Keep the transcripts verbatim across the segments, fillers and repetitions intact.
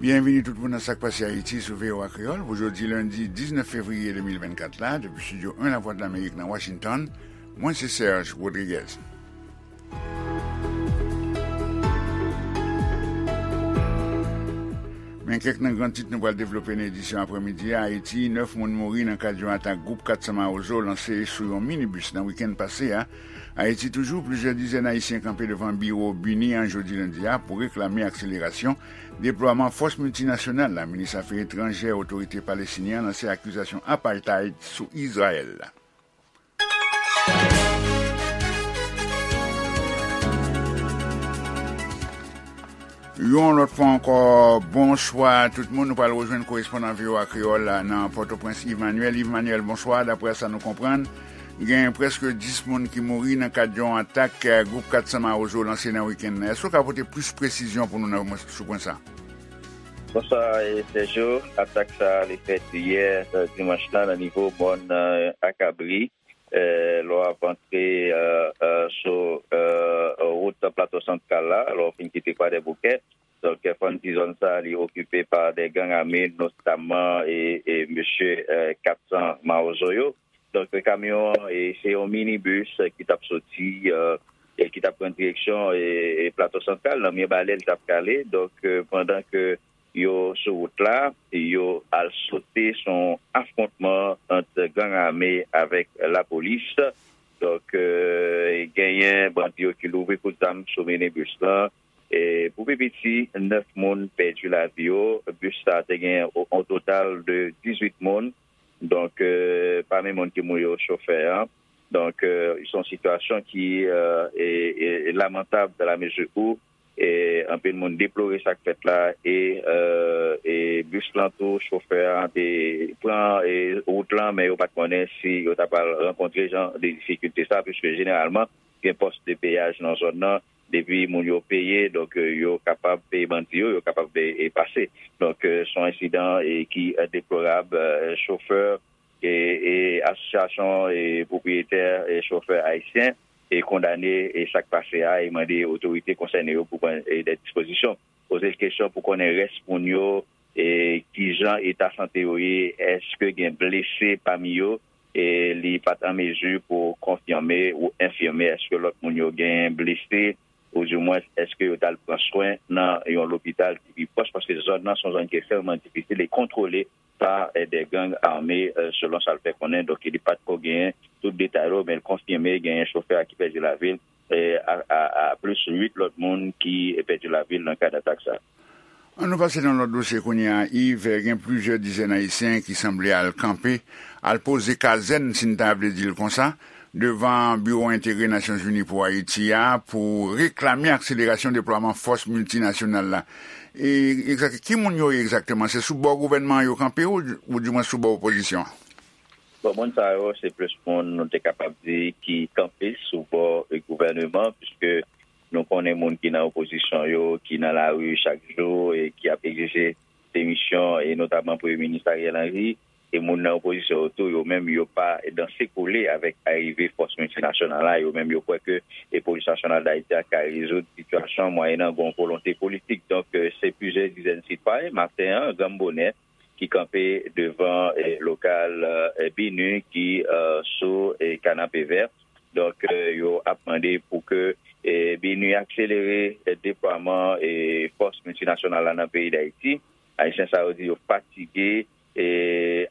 Byenvini tout moun nan Sa k Pase Ayiti sou V O A Kreyòl pou jodi lendi diznèf fevriye de mil vennkat la, depi Estidyo en Lavwadlamerik nan Washington. Mwen se Serge Rodriguez. Men kèk nan gran tit nou pral devlope nan edisyon aprèmidi a. Ayiti, nèf moun mouri nan kad yon atak gwoup kat san Mawozo lanse sou yon minibis nan wikenn pase a. Ayiti toujou, plizyè dizèn Ayisyen kanpe devan biwo BINUH an jodi lendi a pou reklame akselerasyon deplwaman fòs miltinasyonal la. Minis afè etranjè otorite palestinyen an lanse akizasyon apartheid sou Izrayèl. Yon lòt fwa ankò, bonswa tout moun. Nou pral rejwenn korespondan V O A Kreyòl la nan Pòtoprens, Yves Manuel. Yves Manuel, bonswa. Daprè sa nou konprann, gen prèske dis moun ki mouri nan kad yon atak, eh, gwoup kat san Mawozo lanse nan wikenn nan. Èske w ka pote plis presizyon pou nou nan, sou pwen sa? Bonswa, eh, Sergio. Atak sa a, li fèt yè, eh, dimanch la, nan nivo mòn, eh, Akabri. Eh, lè w ap antre, eh, eh, sou, eh, wout Plato Santral la, lè w fin kite Kwadèboukè. Donk, eh, fò n di zòn sa a, li okipe pa de gang ame, notaman, e, e mesye, eh, kat san Mawozo yo. Donk, kamyon an, e, se yon minibis, eh, ki t ap soti, eh, e ki t ap pran direksyon, e, e Plato Santral, nan Mibalè, li t ap prale. Donk, eh, pandan ke yo sou wout la, yo al sote sou yon afwontman ant gang ame avèk lapolis. Donk, eh, genyen bandi yo ki louvri kout zam sou minibis lan. E pou pi piti, nèf moun pèdi lavi yo. Bis sa a te gen o-, on total de dizuit moun. Donk, eh, pami moun ki mouri yo, chofè an. Donk, eh, se yon sitiyasyon ki, eh, e, e, e lamantab dans la mesure où, eh, anpil moun deplore sa k fèt la e, eh, e bis lan tou, chofè an te pran, eh, wout lan, men yo pa t konnen si yo ta pral rankontre jan de difikilte sa, piske jeneralman, gen pòs de peyaj nan zòn nan, depi moun yo peye, donk, eh, yo kapab peye bandi yo, yo kapab, eh, eh, pase. Donk, eh, se yon ensidan, eh, ki, eh, deplorab, eh, chofè, e, e asosyasyon, e pwopriyetè, e chofè ayisyen, e kondane, e sa k pase a, e mande otorite konsène yo pou pran, e, de dispozisyon. Poze l kesyon pou konnen rès moun yo, e kijan eta sante yo ye, èske gen blese pami yo, e li pa t an mezi pou konfime ou enfime èske lòt moun yo gen blese, oudimwens èske yo t al pran swen nan yon lopital ki pi pwòch, paske zòn nan se yon zòn ki ekstrèmman difisil e kontwole pa, eh, de gang ame, eh, selon sa l fè konnen. Donk, li pa t ko genyen tout detay yo, men l konfime genyen chofè a ki pèdi lavi l, eh, a, a, a plis uit lòt moun ki pèdi lavi l nan kad atak sa. An nou pase nan lòt dosye kounye a, Yves. Gen plizyè dizèn Ayisyen ki sanble al kanpe, al poze kazèn, si n ta vle di l konsa, devan Biwo Entegre Nasyonzini pou Ayiti a pou reklame akselerasyon deplwaman fòs miltinasyonal la. E egzak-, ki moun yo ye egzakteman? Se sou bò gouvènman an yo kanpe ou, oudimwen sou bò opozisyon an? Bon, moun sa yo, se plis moun, nou te kapab di, ki kanpe sou bò, e, gouvènman, piske nou konnen moun ki nan opozisyon yo, ki nan lari chak jou e ki ap egzije demisyon, e notaman Premye Minis Ariel Henry, e moun nan opozisyon yo tou, yo menm, yo pa danse kole avèk arive fòs miltinasyonal la. Yo menm, yo kwè ke, e, Polis Nasyonal Dayiti a ka rezoud sitiyasyon an mwayennan yon volonte politik. Donk, e, se plizyè dizèn sitwayen, maten an, granm bonè, ki kanpe devan, e, lokal, e, BINUH ki, e, sou, e, Kanapevè. Donk, e, yo ap mande pou ke, e, BINUH akselere, e, deplwaman, e, fòs miltinasyonal la nan peyi Dayiti. Ayisyen sa yo di yo fatige, e,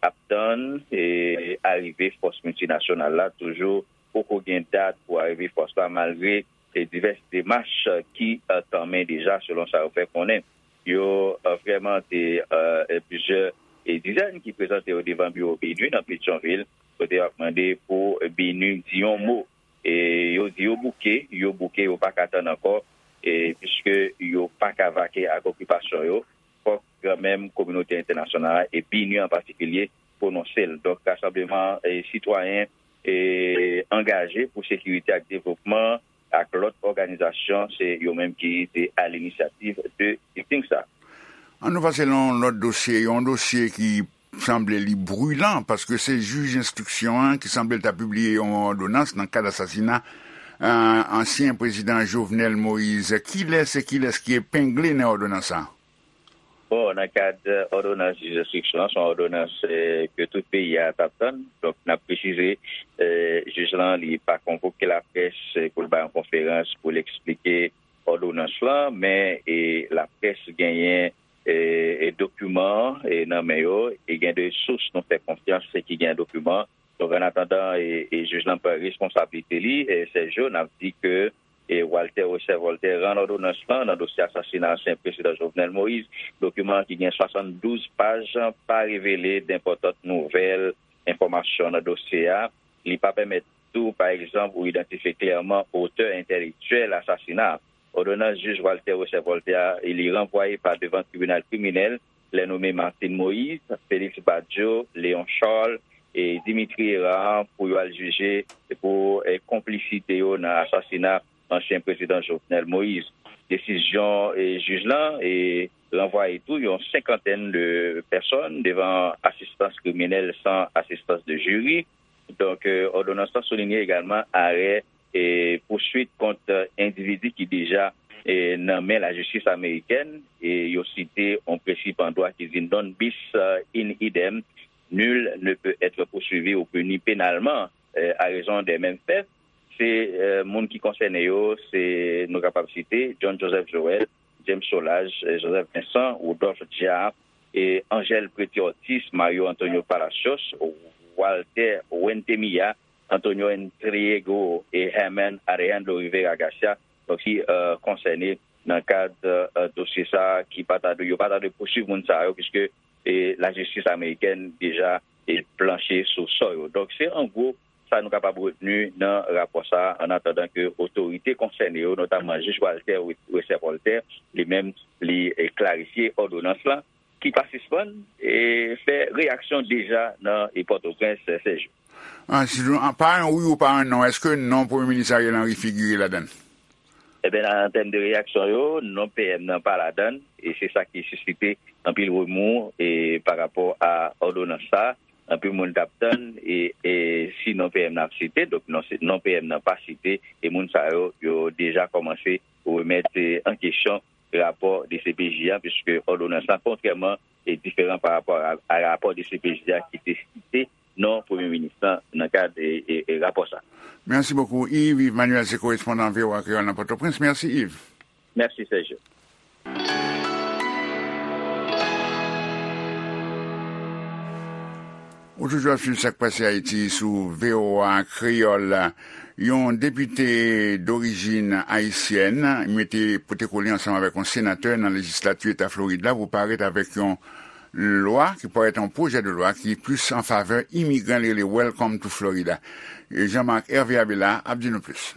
ap tann, e, arive fòs miltinasyonal la. Toujou poko gen dat pou arive fòs la, malgre, e, divès demach ki, e, tanmen deja, selon sa yo fè konnen. Yo, e, vrèman te, e, e, plizyè, e, dizèn ki prezante yo devan biwo BINUH nan Petyonvil, kote yo ap mande pou BINUH di yon mo. E yo di yo bouke, yo bouke, yo pa ka tann ankò, e piske yo pa ka vake ak okipasyon yo. Fòk kanmenm kominote entènasyonal la e BINUH an patikilye pwononse l. Donk, rasanbleman, e, sitwayen, e, angaje pou sekirite ak devlopman ak lòt òganizasyon, se yo menm ki te a linisyativ de sitting sa. An nou pase nan yon lòt dosye, yon dosye ki sanble li brilan, paske se jij enstriksyon an ki sanble l ta pibliye yon òdonans nan kad asasina, eh, ansyen prezidan Jovenel Moïse. Kilès e kilès ki epengle nan òdonans sa? Bon, nan kad òdonans jij enstriksyon an, se yon òdonans eh, ke tout peyi a t ap tann. Donk, n ap presize, eh, jij lan, li pa konvoke laprès eh, pou l bay yon konferans pou l eksplike òdonans lan, men eh, laprès genyen eh, eh, dokiman eh, nan men yo, e gen de sous nou fè konfyans eh, ki gen dokiman. Donk, an atandan, eh, eh, jij lan pran responsablite li, eh, Sergio, n ap di ke eh, Walter Wesser Voltaire rann òdonans lan nan dosye asasina ansyen prezidan Jovenel Moïse. Dokiman an ki gen swasanndouz paj pa revele nenpòt nouvèl enfòmasyon nan dosye a. Li pa pèmèt tou, pa egzanp, ou idantifye klèman otè entèlektyèl asasina a. Òdonans jij Walter Wesser Voltaire a, li ranvwaye pa devan tribinal kriminèl, lè nome Martine Moïse, Félix Badio, Léon Charles e Dimitri Hérard pou yo al jije pou eh, konplisite yo nan asasina ansyen prezidan Jovenel Moïse. Desizyon eh, jij lan eh, ranvwaye tou yon senkantèn de pèsòn devan asistans kriminèl san asistans de jiri. Donk, eh, òdonans lan soulinye egalman arè eh, pouswit kont endividi ki deja eh, nan men lajistis amerikèn. E yo site yon prensip an dwa ki di non bis eh, in idem, nul ne peut être poursuivi ou puni pénalement eh, à raison des mêmes faits. Se eh, moun ki konsène yo, se nou kapab site John Joseph Joël, James Solages, eh, Joseph Vincent, Rodolphe Diard, eh, Angel Preti Ortiz, Mario Antonio Palacios, Walter Wentemilla, Antonio Entriego e Herman Alejandro Rivera Garcia, donk ki eh, konsène nan kad eh, dosye sa a, ki pa ta dwe, yo pa ta dwe pouswiv moun sa yo, piske eh, lajistis amerikèn deja eh, planche sou sò yo. Donk, se an gwo sa nou kapab retni nan rapò sa a, an atandan ke otorite konsène yo, notamman jij Walter Wesser Voltaire, li menm, li eh, klarifye òdonans lan, ki pa sispann eh, fè reyaksyon deja nan eh, Pòtoprens, eh, Sèjou. Ah, si nou, ah, pa yon wi ou pa yon non, èske non Premye Minis Ariel Henry figire ladan l? Eben, an tèm de reyaksyon yo, non P M nan pa ladan l, e se sa ki sisite anpil remou e pa rapò a òdonans sa. Anpil moun t ap tann, e, e si non P M nan ap site, donk non, se, non P M nan pa site, e moun sa yo, yo deja kòmanse remèt eh, an kesyon rapò D C P J a, piske òdonans lan, kontrèman, e diferan pa rapò a, a rapò D C P J a ki te site non Premye Minis lan nan kad e, e, e rapò sa. Mèsi bokou, Yves. Yves Manuel se korespondan V O A Kreyòl nan Pòtoprens. Mèsi, Yves. Mèsi, Sergio. Ou toujou ap swiv Sa k Pase Ayiti sou V O A Kreyòl. Yon depite dorijin ayisyèn mete pote kole ansanm avèk yon senatè nan lejislati eta Florid la pou parèt avèk yon lwa ki parèt yon pwojè de lwa ki plis an favè imigran li rele Welcome to Florida. Jean Marc Hervé Abela ap di nou plis.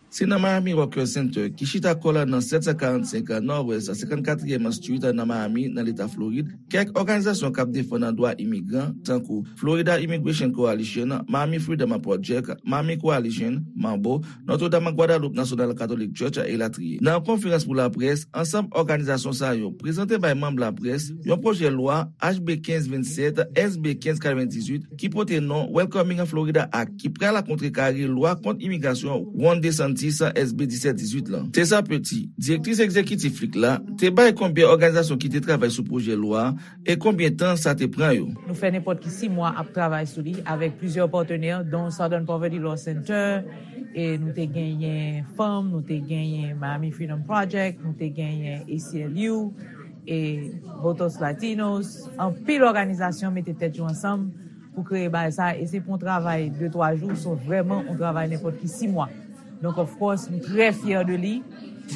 Se nan Miami Workers Center, ki chita kò l nan sèt san karannsenk Nòdwès senkannkatriyèm Street nan Miami, nan Leta Florid, kèk òganizasyon k ap defann dwa imigran, tankou Florida Immigration Coalition, Miami Freedom Project, Miami Coalition, Mambo, Notre Dame Guadalupe National Catholic Church, elatriye. Nan yon konferans pou laprès, ansanm òganizasyon sa yo prezante bay manm laprès yon pwojè lwa H B kenz vennsèt, S B kenz katrevendizuit, ki pote non Welcoming Florida Act, ki pral kontrekare lwa kont imigrasyon Ron DeSantis, S B disèt dizuit lan. Tessa Petit, direktris egzekitif lik la, te bay konbyen òganizasyon ki te travay sou pwojè lwa a e konbyen tan sa te pran yo. Nou fè nenpòt ki sis mwa ap travay sou li avèk plizyè patnè, dont Southern Poverty Law Center, e nou te genyen fanm, nou te genyen Miami Freedom Project, nou te genyen A C L U, e Votos Latinos, anpil òganizasyon mete tèt yo ansanm pou kreye bagay sa, e se pa yon travay de twa jou, se vrèman yon travay nenpòt ki sis mwa. Donk, of course, nou trè fyè de li,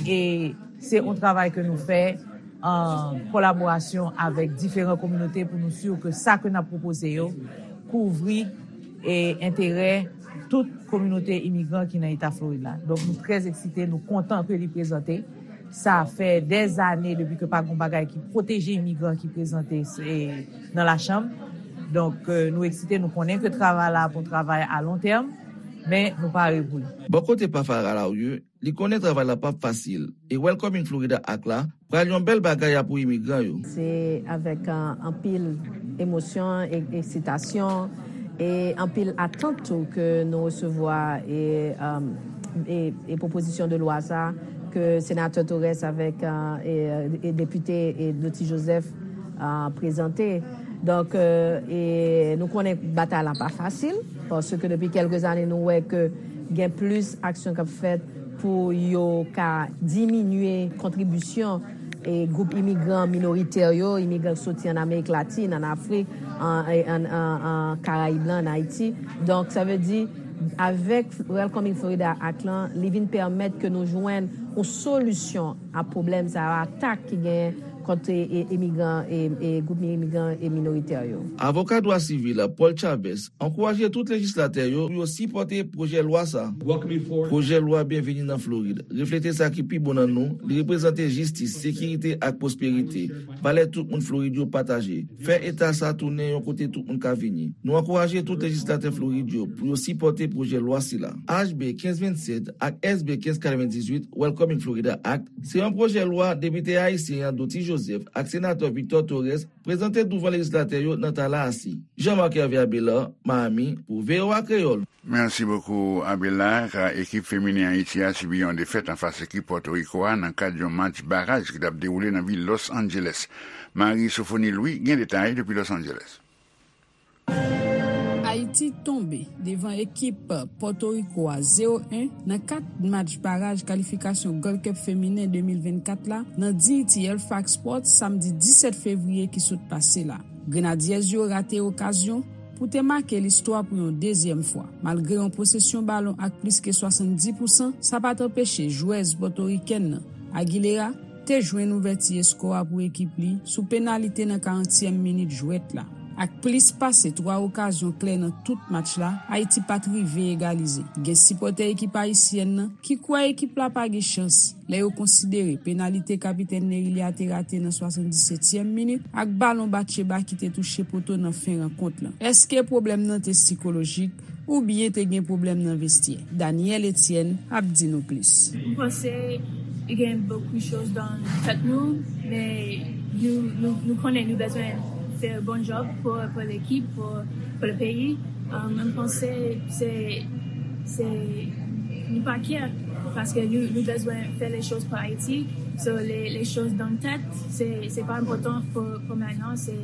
e se yon travay ke nou fè an kolaborasyon avèk diferan kominote pou nou si ke sa ke n ap pwopoze yo kouvri e enterè tout kominote imigran ki nan eta Florid la. Donk, nou trè eksite, nou kontan ke li prezante. Sa fè dèzane depi ke pa gen bagay ki pwoteje imigran ki prezante nan lachanm. Donk, eh, nou eksite, nou konnen ke travay la ap yon travay a lon tèm, men nou pare pou li. Bò kote pa Farah Laurier, li konnen travay la p ap fasil, e Welcoming Florida Act la pral yon bèl bagay a pou imigran yo. Se avèk, eh, anpil emosyon, e, eksitasyon, e anpil atant tou ke nou resevwa e, um, e, e pwopozisyon de lwa sa ke Senatè Torres avèk, euh, e, e Depite, e, Dottie Joseph, euh, prezante. Donk, euh, e nou konnen batay la pa fasil, paske depi kèlke zane nou wè ke gen plis aksyon k ap fèt pou yo ka diminye kontribisyon e gwoup imigran minoritè yo, imigran k soti ann Amerik Latin, ann Afrik, an, an, an, an Karayib lan, ann Ayiti. Donk, sa vle di, avèk Welcoming Florida Act lan, li vin pèmèt ke nou jwenn yon solisyon a pwoblèm sa yo, atak ki genyen kont, e, e, imigran, e, e gwoup imigran e minoritè yo. Avoka dwa sivil Paul Chavez ankouraje tout lejislatè yo pou yo sipòte pwojè lwa sa. Pwojè lwa Byenveni nan Florid reflete sa ki pi bon nan nou, li reprezante jistis, sekirite ak pwosperite, valè tout moun Florid yo pataje. Fè eta sa tounen yon kote tout moun ka vini. Nou ankouraje tout lejislatè Florid yo pou yo sipòte pwojè lwa sila. H B kenz vennsèt ak S B kenz katrevendizuit, Welcoming Florida Act, se yon pwojè lwa depite ayisyen an Dottie Joseph ak senatè Victor Torres prezante douvan lejislatè yo nan Tallahassee. Jean-Marc Hervé Abelard, Miami, pou V O A Kreyòl. Merci beaucoup, Abelard. Ekip feminen Ayiti a sibi yon defèt anfas ekip Pòtoriko a nan kad yon match baraj ki t ap dewoule nan vil Los Angeles. Marie Sophonie Louis gen detay depi Los Angeles. Ayiti tonbe devan ekip Pòtoriko a zewo en nan kat match baraj kalifikasyon Gold Cup feminen de mil vennkat la nan Dignity Halifax Sports samdi disèt fevriye ki sot pase la. Grenadiyèz yo rate okazyon pou te make listwa pou yon dezyèm fwa. Malgre yon posesyon balon ak plis ke swasanndis pousan, sa pa t anpeche jwèz pòtorikèn nan, Aguilera, te jwenn ouvèti eskò a pou ekip li sou penalite nan karantyèm minit jwèt la. Ak plis pase twa okazyon klè nan tout match la, Ayiti pa t rive egalize. Gen sipòtè ekip ayisyèn nan ki kwè ekip la pa gen chans lè yo konsidere penalite kapitèn Nerilia te rate nan swasanndisetyèm minit ak balon Batcheba ki te touche poto nan fen rankont lan. Èske pwoblèm nan te sikolojik oubyen te gen pwoblèm nan vestyè? Daniel Etienne ap di nou plis. M panse gen bokou choz nan tèt nou, men nou, nou, nou konnen nou bezwen fè bon job pou, pou lekip, pou, pou le peyi. Um, mwen panse se, se, nou pa kyè, paske nou, nou bezwen fè le choz pou Ayiti. So, le, le choz nan tèt, se, se pa enpòtan pou, pou mentnan, se,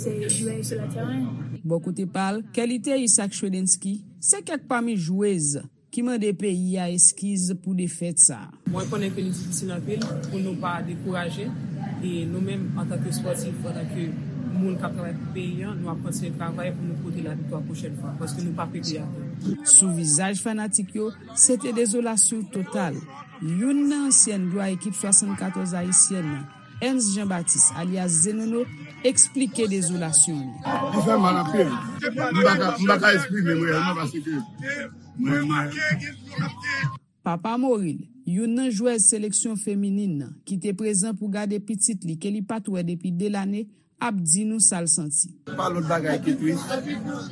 se jwe sou le teren. Bò kote pa l, Kelly Theus ak Shredensky se kèk pami jwez ki mande peyi a eskiz pou defèt sa a. Mwen konnen ke li difisil anpil pou nou pa dekouraje, e nou menm antanke spòtif, antanke moun k ap travay pou peyi a, nou ap kontinye travay pou nou pote laviktwa pwochèn fwa, paske nou p ap rete atè. Sou vizaj fanatik yo, se te dezolasyon total. Youn nan ansyèn glwa ekip swasannkatòz ayisyèn nan, Ernst Jean Baptiste, alyas Zenono, eksplike dezolasyon li. Li fè mal anpil. M pa ka, m pa ka eksprime m reyèlman paske mwen mal. Papa Moril, youn nan jwèz seleksyon feminin nan, ki te prezan pou gade pitit li ke li pa t wè depi de lane, ap di nou sa l santi. Pa lòt bagay ke tris.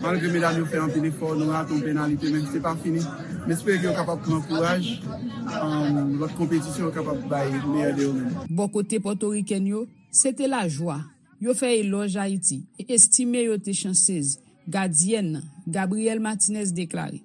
Malgre medam yo fè anpil efò, nou rate yon penalite, men se pa fini. M espere ke yo kapab pran kouraj, um, lòt konpetisyon yo kapab bay meyè de yo menm. Bò kote pòtorikèn yo, se te lajwa. Yo fè elòj Ayiti e estime yo te chansez. Gadyèn nan, Gabrielle Martinez, deklare: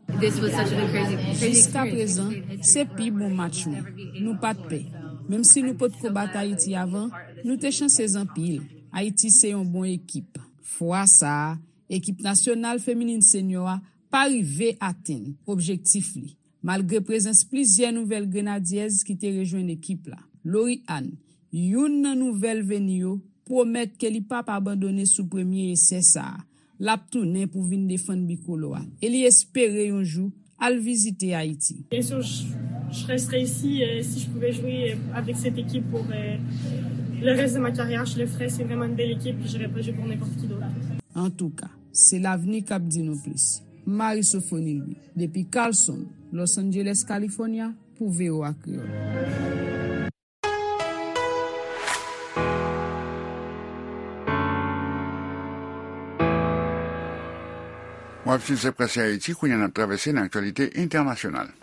Jiskaprezan, se pi bon match mwen. Nou pa t pè. Menm si nou potko bat Ayiti avan, nou te chansez anpil. Ayiti se yon bon ekip. Fwa sa a, ekip nasyonal feminin senyò a pa rive atenn objektif li, malgre prezans plizyè nouvèl grenadyèz ki te rejwenn ekip la. Lori Ann, youn nan nouvèl veni yo, pwomèt ke li p ap abandone sou premye esè sa a. L ap tounen pou vin defann bikolò a e li espere yon jou al vizite Ayiti. Bien sûr, je, je resterai ici, euh, si je pouvais jouer, euh, avec cette équipe pour, euh, le reste de ma carrière. Je le ferais, c'est vraiment une belle équipe, puis j'irais pas jouer pour n'importe qui d'autre. Antouka, se lavni k ap di nou plis. Marie Sophonie Louis, depi Carlson, Los Angeles, California, pou V O A Kreyòl. W ap swiv Se Prèske Ayiti, kounye a n ap travèse nan aktyalite entènasyonal.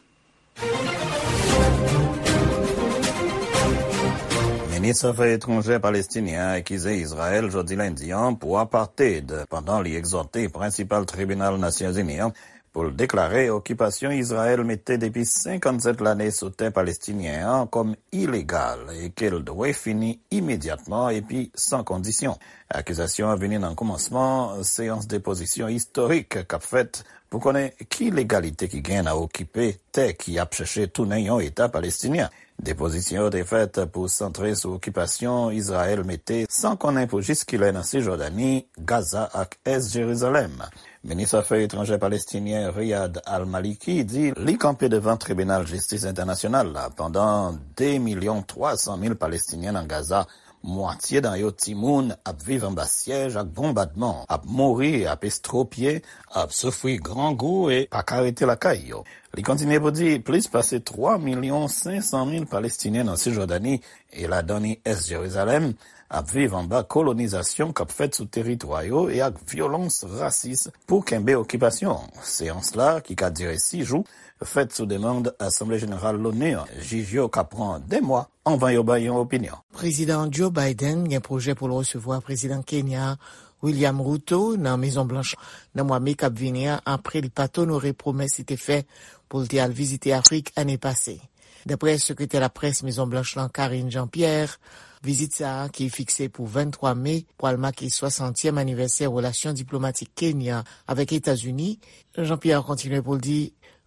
Minis afè etranjè palestinyen an akize Izrayèl jodi lendi an pou apartheid, pandan li egzòte prensipal tribinal Nasyonzini an pou l deklare okipasyon Izrayèl mete depi senkannsèt lane sou tè palestinyen an kòm ilegal e ke l dwe fini imedyatman epi san kondisyon. Akizasyon an vini nan kòmansman seyans depozisyon istorik k ap fèt pou konnen ki legalite ki gen nan okipe tè ki ap chèche tounen yon eta palestinyen. Depozisyon yo te fèt pou santre sou okipasyon Izrayèl mete san konnen pou jiskilè nan Sijòdani, Gaza ak Ès Jerizalèm. Minis afè etranjè palestinyen Riyad Al-Maliki di li kanpe devan Tribinal Jistis Entènasyonal la pandan de milyon twa san mil Palestinyen nan Gaza, mwatye nan yo timoun, ap viv anba syèj ak bonbadman, ap mouri, ap estwopye, ap soufri grangou e pa ka rete lakay yo. Li kontinye pou di plis pase twa milyon senk san mil Palestinyen nan Sijòdani e ladan li Ès Jerizalèm ap viv anba kolonizasyon k ap fèt sou teritwa yo e ak vyolans rasis pou kenbe okipasyon. Seyans la, ki ka dire sis jou, fèt sou demann Asanble Jeneral Loni an. Jij yo ka pran de mwa anvan yo bay yon opinyon. Prezidan Joe Biden gen pwojè pou l resevwa Prezidan Kenya William Ruto nan Mezon Blanch nan mwa me k ap vini an, apre l pa t onore pwomès li te fè pou l te al vizite Afrik ane pase. Daprè sekretè laprès Mezon Blanch lan, Karine Jean-Pierre, vizit sa a, ki fikse pou venntwa me, pral make swasantyèm anivèsè relasyon diplomatik Kenya avèk Etazini. Jean-Pierre kontinye pou l di,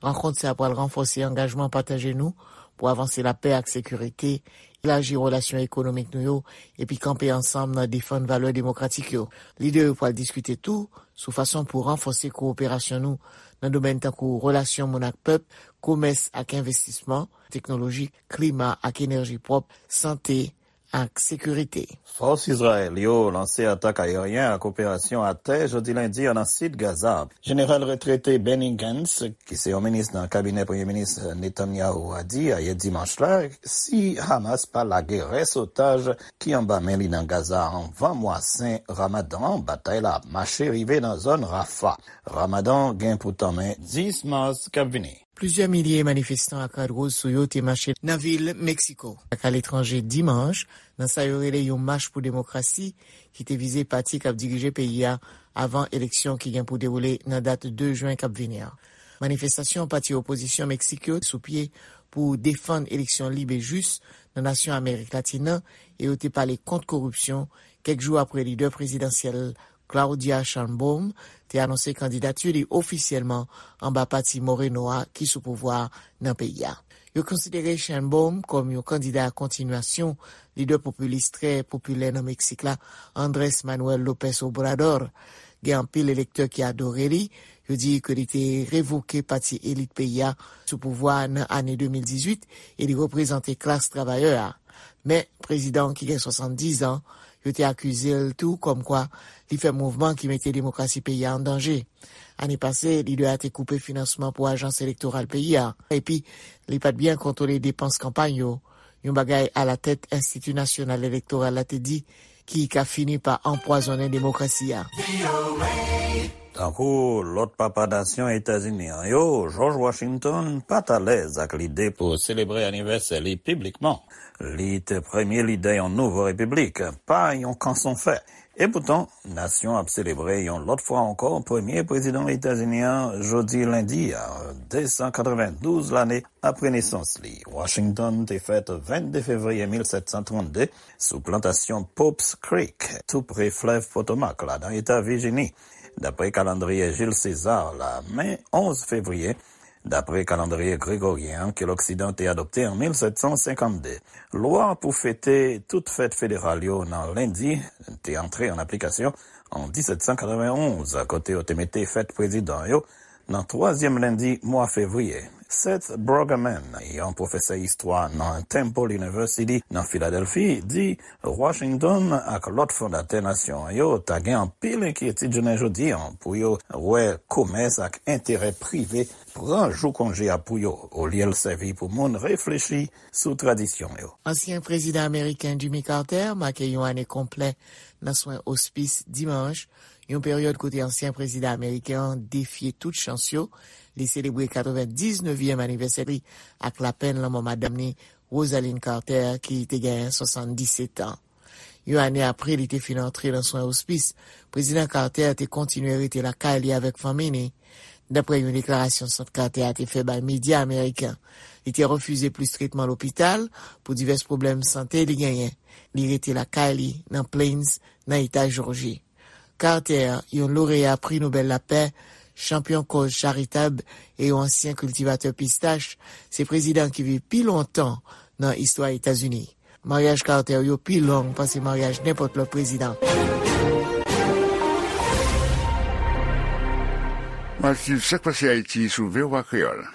rankont sa a pral ranfòse angajman pataje nou pou avanse lapè ak sekirite, elaji relasyon ekonomik nou yo, epi kanpe ansanm nan defann valè demokratik yo. Lidè yo pral diskite tou sou fason pou ranfòse kowoperasyon nou nan domèn tankou relasyon moun ak pèp, komès ak envestisman, teknoloji, klima ak enèji pwòp, sante ak sekirite. Fòs Izrayèl yo lanse atak ayeryen ak operasyon atè jodi lendi an nan sid Gaza. Jeneral retrete Benny Gantz, ki se yon minis nan kabinè Premye Minis Netanyahu a, di ayè dimanch la, si Hamas pa lage rès otaj ki anba men li nan Gaza anvan mwa sen Ramadan, batay la ap mache rive nan zòn Rafah. Ramadan gen pou tanmen dis mas k ap vini. Plizyè milye manifestan ak rad woz sou yo te mache nan vil Meksiko ak aletranje dimanch, nan sa yo rele yon mach pou demokrasi ki te vize pati k ap dirije peyi a avan eleksyon ki gen pou dewoule nan dat de jen k ap vini an. Manifestasyon pati opozisyon Meksik yo sou pye pou defann eleksyon lib e jis nan nasyon Amerik Latin nan, e yo te pale kont koripsyon kèk jou apre lidè prezidansyèl Claudia Sheinbaum te anonse kandidati li ofisyèlman anba pati Moreno a ki sou pouvwa a nan peyi a. Yo konsidere Sheinbaum kòm yon kandida kontinyasyon lidè popilis trè popilè nan Meksik la, Andrés Manuel López Obrador. Gen anpil elektè ki adore li. Yo di ke li te revoke pati elit peyi a sou pouvwa a nan ane de mil dizuit e li reprezante klas travayè a. Men, prezidan an ki gen swasanndis an, yo te akize l tou kòmkwa li fè mouvman ki mete demokrasi peyi a an danje. Ane pase, lidè a te koupe finansman pou ajans elektoral peyi a, epi li pa t byen kontwole depans kanpay yo, yon bagay alatèt Enstiti Nasyonal Elektoral la te di ki ka fini pa anpwazonnen demokrasi a. Tankou lòt papa nasyon Etazini an yo, George Washington pa t alèz ak lide pou selebre anivèsè li piblikman. Li te premye lidè yon nouvo repiblik, pa yon kanson fè. Epoutan, nasyon ap selebre yon lòt fwa ankò premye prezidan Etazini an jodi lendi a, de san katrevendouz lane apre nesans li. Washington te fèt vennde fevriye mil sèt san trannde sou plantasyon Pope's Creek, tou pre flèv Potomac la, nan eta Vijini, dapre kalandriye Jules César la. Men onz fevriye, dapre kalandriye gregoryen an ke Loksidan te adopte an mil sèt san senkannde. Lwa pou fete tout fèt federal yo nan lendi te antre an aplikasyon an disèt san katrevenonz, kote yo te mete fèt prezidan yo nan twazyèm lendi mwa fevriye. Seth Brueggemann, yon pwofesè istwa nan Temple University nan Filadèlfi, di Washington ak lòt fondatè nasyon an yo ta gen anpil enkyetid jounen jodi an pou yo wè komès ak enterè prive pran jou konje a pou yo, olye l sèvi pou moun reflechi sou tradisyon yo. Ansyen prezidan ameriken Jimmy Carter make yon ane konplè nan swen ospis dimanch, yon peryòd kote ansyen prezidan ameriken an defye tout chans yo. Li selebre katrevendiznèvyèm anivèsè li ak lapenn lanmò madanm ni, Rosalynn Carter, ki te genyen swasanndisèt an. Yon ane apre li te fin antre nan swen ospis, Prezidan Carter te kontinye rete lakay li avèk fanmi ni. Daprè yon deklarasyon Sant Carter a te fè bay medya ameriken, li te refize plis tretman lopital pou divès pwoblèm sante li genyen. Li rete lakay li nan Plains, nan eta Jòji. Carter, yon loreya Pri Nobèl Lapè, chanpyon kòz charitab e yon ansyen kiltivatè pistach, se prezidan ki viv pi lontan nan istwa Etazini. Maryaj Carter yo pi long pase maryaj nenpòt lòt prezidan. W ap swiv Sak Pase Ayiti sou V O A Kreyòl.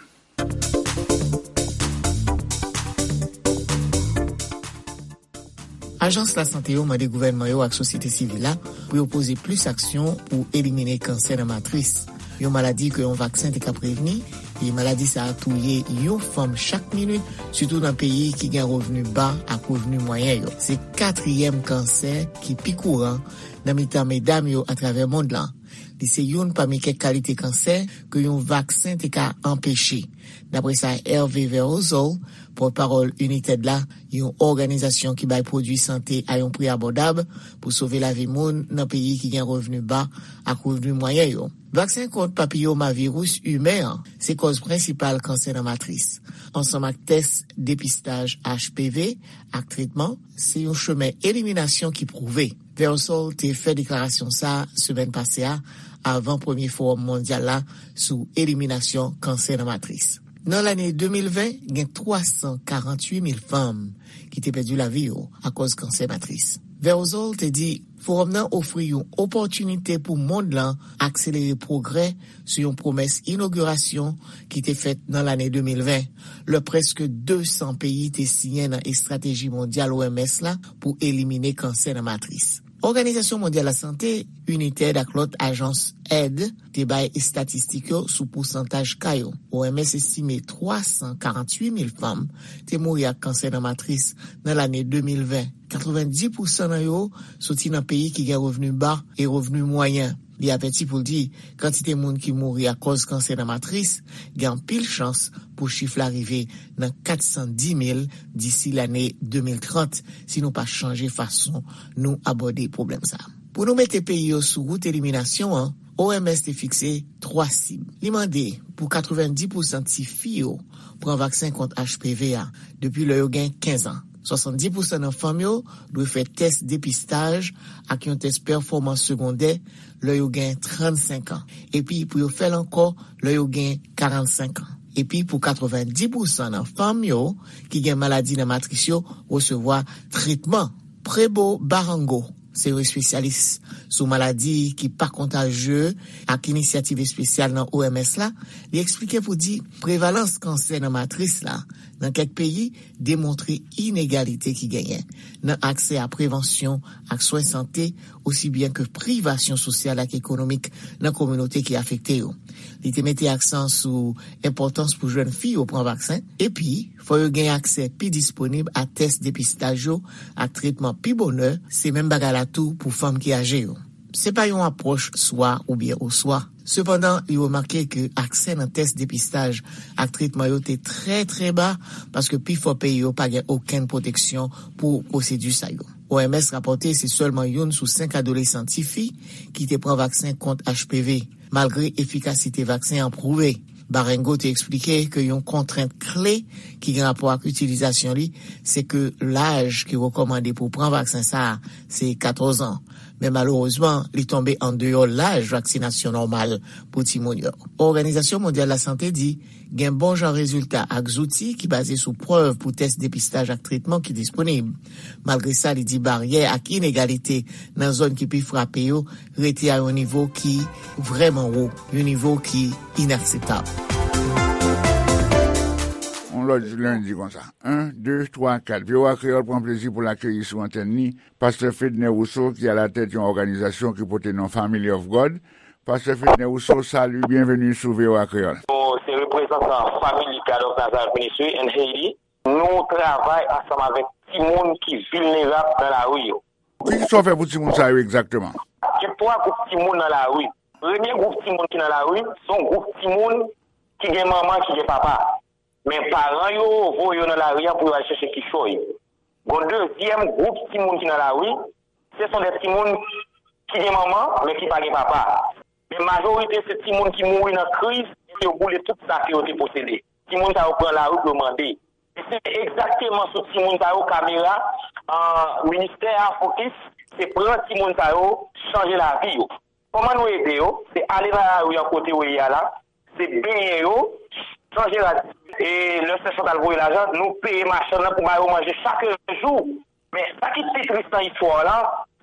Ajans lasante yo mande gouvènman yo ak sosyete sivil la pou yo poze plis aksyon pou elimine kansè nan matris, yon maladi ke yon vaksen te ka prevni, e maladi sa a touye yon fanm chak minit, sitou nan peyi ki gen revni ba ak revni mwayen yo. Se katriyèm kansè ki pi kouran nan mitan medam yo atravè mond lan. Li se youn pami kèk kalite kansè ke yon vaksen te ka anpeche. Daprè sa Hervé Verozol, pòtpawòl United la, yon òganizasyon ki bay pwodui sante a yon pri abòdab pou sove lavi moun nan peyi ki gen revni ba ak revni mwayen yo. Vaksen kont papiyomaviris imen an se kòz prensipal kansè nan matris, ansanm ak tès depistaj H P V ak tretman, se yon chemen eliminasyon ki pwouve. Verozol te fè deklarasyon sa a semèn pase a, avan premye fowòm mondyal la sou eliminasyon kansè nan matris. Nan lane de mil ven, gen twa san karanntuit mil fanm ki te pèdi lavi yo akòz kansè matris. Verozol te di fowòm nan ofri yon opòtinite pou mond lan akselere pwogrè sou yon pwomès inogirasyon ki te fèt nan lane de mil ven, lè prèske de san peyi te siyen nan estrateji mondyal O M S la pou elimine kansè nan matris. Òganizasyon Mondyal Lasante, United ak lòt ajans èd te bay estatistik yo sou pousantaj ka yo. O M S estime twa san karanntuit mil fanm te mouri ak kansè nan matris nan lane de mil ven. Katrevenndis pousan nan yo soti nan peyi ki gen revni ba e revni mwayen. Li avèti pou l di kantite moun ki mouri akòz kansè nan matris gen anpil chans pou chif la rive nan kat san dis mil disi lane de mil trant si nou pa chanje fason nou abòde pwoblèm sa a. Pou nou mete peyi yo sou wout eliminasyon an, O M S te fikse twa sib. Li mande pou katrevenndis pousan tifi yo pran vaksen kont H P V a depi lè yo gen kenz an. Swasanndis pousan nan fanm yo dwe fè tès depistaj ak yon tès pèfòmans segondè lè yo gen trannsenk an, epi pou yo fè l ankò lè yo gen karannsenk an. Epi pou katrevenndis pousan nan fanm yo ki gen maladi nan matris yo resevwa tretman. Prebo Barango se yon espesyalis sou maladi ki pa kontaje ak inisyativ espesyal nan O M S la. Li eksplike pou di prevalans kansè nan matris la nan kèk peyi demontre inegalite ki genyen nan aksè a prevansyon ak swen sante, osi byen ke privasyon sosyal ak ekonomik nan kominote ki afekte yo. Li te mete aksan sou enpòtans pou jèn fi yo pran vaksen, epi fò yo gen aksè pi disponib a tès depistaj yo ak tretman pi bonè, se menm bagay la tou pou fanm ki aje yo. Se pa yon apwòch swa oubyen oswa. Sepandan, li remake ke aksè nan tès depistaj ak tretman yo te trè, trè ba, paske pifò peyi yo pa gen okenn pwoteksyon pou pwosedi sa yo. O M S rapòte se sèlman youn sou senk adolesan tifi ki te pran vaksen kont H P V, malgre efikasite vaksen an pwouve. Barango te eksplike ke yon kontrent kle ki gen rapò ak itilizasyon li, se ke laj ki rekòmande pou pran vaksen sa a, se katòz an. Men malerezman, li tonbe andeyò laj vaksinasyon nòmal pou timoun yo. Òganizasyon Mondyal Lasante di gen bon jan rezilta ak zouti ki baze sou prèv pou tès depistaj ak tretman ki disponib. Malgre sa, li di baryè ak inegalite nan zòn ki pi frape yo rete a yon nivo ki vrèman wo, yon nivo ki inakseptab. On lòt lendi konsa. En, de, twa, kat. V O A Kreyòl pran plezi pou l akeyi sou antèn li Pastè Fedner Rousseau, ki alatèt yon òganizasyon ki pote non Family of God. Pastè Fedner Rousseau, salut, bienvenue sou V O A Kreyòl. Nou se reprezantan Family God of Nazareth Ministry in Haiti. Nou travay ansanm avèk timoun ki vilnerab nan lari yo. Ki sa w fè pou timoun sa yo egzakteman? Gen twa gwoup timoun nan lari. Premye gwoup timoun ki nan lari, se yon gwoup timoun ki gen manman, ki gen papa. Men paran yo voye yo nan lari a pou yo al chèche kichòy. Gon dezyèm gwoup timoun ki nan lari, se son de timoun ki gen manman, men ki pa gen papa. Men majorite se timoun ki mouri nan kriz, epi yo boule tout sa ke yo te posede. Timoun sa yo pran lari pou yo mande. E se egzakteman sou timoun sa yo kamera an, ministè a fokis, se pran timoun sa yo, chanje lavi yo. Kòman nou ede yo? Se ale nan lari an kote yo ye a la, se benyen yo, chanje rad. E lè sè Chantal voye lajan, nou peye machann nan pou ba yo manje chak jou. Men sa ki pi tris nan istwa la,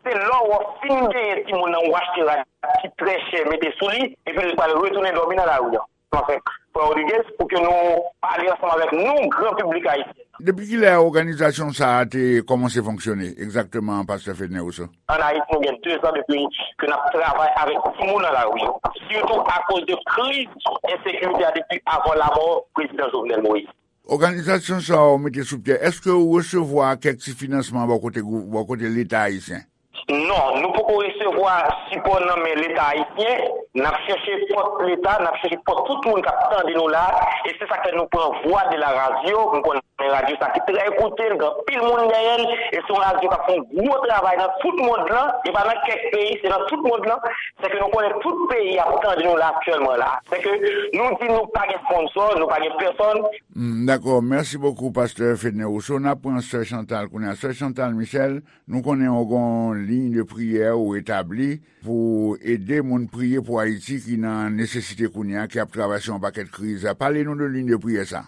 se lè w fin benyen timoun nan, ou achte rad ki trè chè, mete sou li, epi l pral retounen dòmi nan lari an. Anfen, frè Rodriguez, pou ke nou pale ansanm avèk nou, gran piblik ayisyen. Depi kilè òganizasyon sa a te kòmanse fonksyone egzakteman, pastè Fedner Rousseau? Ann Ayiti, nou gen de zan depi ke n ap travay avèk timoun nan lari yo, sitou akoz de kriz ensekirite a depi avan lamò prezidan Jovenel Moïse. Òganizasyon sa a w mete sou pye, èske w resevwa kèk ti finansman bò kote gwou-, bò kote Leta ayisyen? Non, nou poko resevwa sipò nan men Leta ayisyen. N ap chèche pòt Leta, n ap chèche pòt tout moun k ap tande nou la. E se sa k fè nou pran Voix de la Radio. M konnen radyo sa ki trè ekoute, l gen anpil moun dèyè l. E se yon radyo k ap fè yon gwo travay nan tout mond lan. E pa nan kèk peyi, se nan tout mond lan. Se ke nou konnen tout peyi ap tande nou la aktyèlman la. Se ke nou di nou pa gen sponsò, nou pa gen pèsòn. Hmm, dakò. Mèsi bokou, pastè Fedner Rousseau. N ap pran sè Chantal kounye a. Sè Chantal Michel, nou konnen w gen yon liy de priyè ou etabli pou ede moun priye pou Ayiti ki nan nesesite kounye a, ki ap travèse yon pakèt kriz. Pale nou de liy de priyè sa.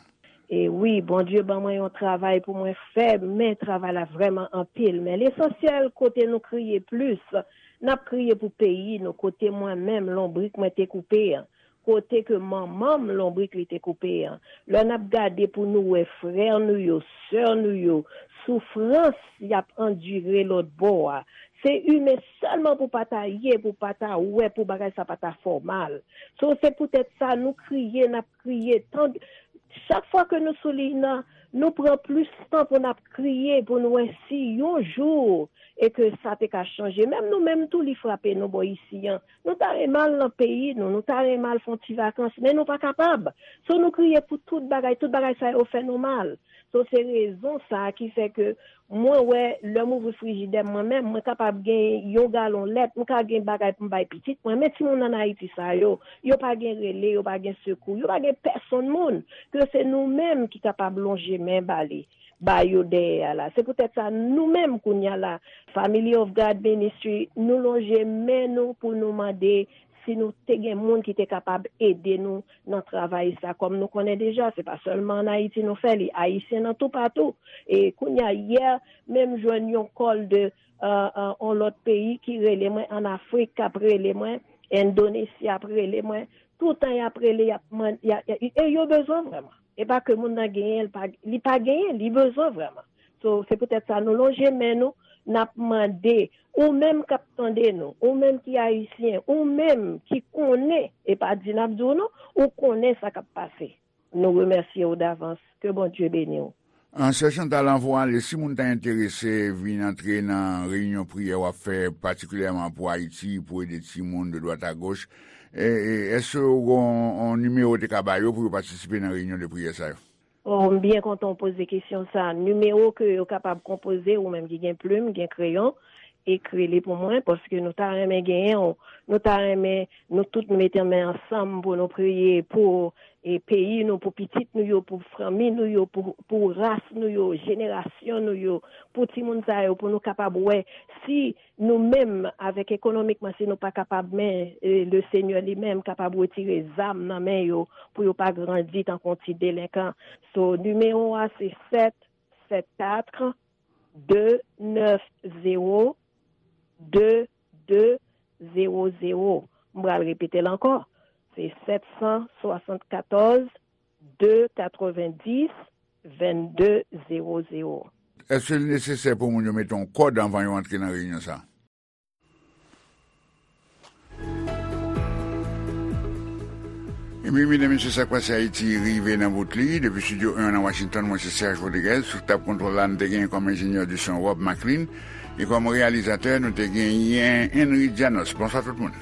E wi, Bondye ban mwen yon travay pou mwen fè, men travay la vrèman anpil. Men lesansyèl, kote nou kriye plis, n ap kriye pou peyi nou, kote mwen menm, lonbrik mwen te koupe an, kote ke manman m, lonbrik li te koupe an. Lè n ap gade pou nou wè frè nou yo, sè nou yo, soufrans y ap andire lòt bò a, se imen sèlman pou pa ta ye, pou pa ta wè, pou bagay sa pa ta fè w mal. So, se poutèt sa nou kriye, n ap kriye. Tan, chak fwa ke nou sou liy nan, nou pran plis tan pou n ap kriye, pou n wè si yon jou e ke sa te ka chanje. Menm nou menm tou, li frape nou bò isi an. Nou ta renmen al nan peyi nou, nou ta renmen al fè yon ti vakans, men nou pa kapab. So, nou kriye pou tout bagay, tout bagay sa yo fè nou mal. So, se rezon sa a ki fè ke mwen wè, lè m ouvri frijidè m mwen menm, mwen kapab gen yon galon lèt, m ka gen bagay pou m bay pitit mwen, men timoun ann Ayiti sa yo, yo pa gen rele, yo pa gen sekou, yo pa gen pèsonn moun, ke se nou menm ki kapab lonje men ba li, ba yo dèyè a la. Se poutèt sa, nou menm kounye a la, Family of God Ministry, nou lonje men nou pou nou mande si nou te gen moun ki te kapab ede nou nan travay sa. Kòm nou konnen deja, se pa sèlman ann Ayiti nou fè li, Ayisyen nan toupatou. E kounye a, yè, menm jwenn yon kòl de, euh, euh, yon lòt peyi ki rele mwen, ann Afrik, k ap rele mwen, Endonesi ap rele mwen, toutan y ap rele, y ap mande, y a, y a, e yo bezwen vrèman. E pa ke moun nan genyen, li pa, li pa genyen, li bezwen vrèman. So, se poutèt sa nou lonje men nou, n ap mande, ou menm k ap tande nou, ou menm ki ayisyen, ou menm ki konnen, e pa di n ap di w non, ou konnen sa k ap pase. Nou remèsye w davans. Ke Bondye beni w. An, sè Chantal, anvan w ale, si moun ta enterese vin antre nan reyinyon priyè w ap fè, patikilyèman pou Ayiti, pou ede timoun de dwat a goch, e, e, èske w gen yon, yon nimewo w te ka ba yo pou yo patisipe nan reyinyon de priyè sa yo? Oh, m byen kontan w poze kesyon sa. Nimewo ke yo kapab konpoze, ou menm ki gen plim, gen kreyon, ekri li pou mwen, paske nou ta renmen genyen w. Nou ta renmen nou tout nou mete men ansanm pou nou priye pou, e, peyi nou, pou pitit nou yo, pou fanmi nou yo, pou, pou ras nou yo, jenerasyon nou yo, pou timoun sa yo, pou nou kapab wè si nou menm, avèk ekonomikman, si nou pa kapab, men, e, le Senyè li menm kapab retire zam nan men yo, pou yo pa grandi tankou yon ti delenkan. So, nimewo a se sèt sèt kat de nèf zewo de de zewo zewo. M pral repete l ankò. Se sèt san swasannkatòz de katrevenndis vennde zewo zewo. Èske l nesesè pou moun yo mete yon kòd anvan yo antre nan reyinyon sa a? Ebyen, medam, mesye, Sa k Pase Ayiti rive nan bout li. Depi Estidyo en nan Washington, mwen se Serge Rodriguez. Sou tab kontwòl la, n te genyen kòm enjenyè de son Rob McLean. E kòm reyalizatè, nou te genyen Henry Dianos. Bonswa tout moun.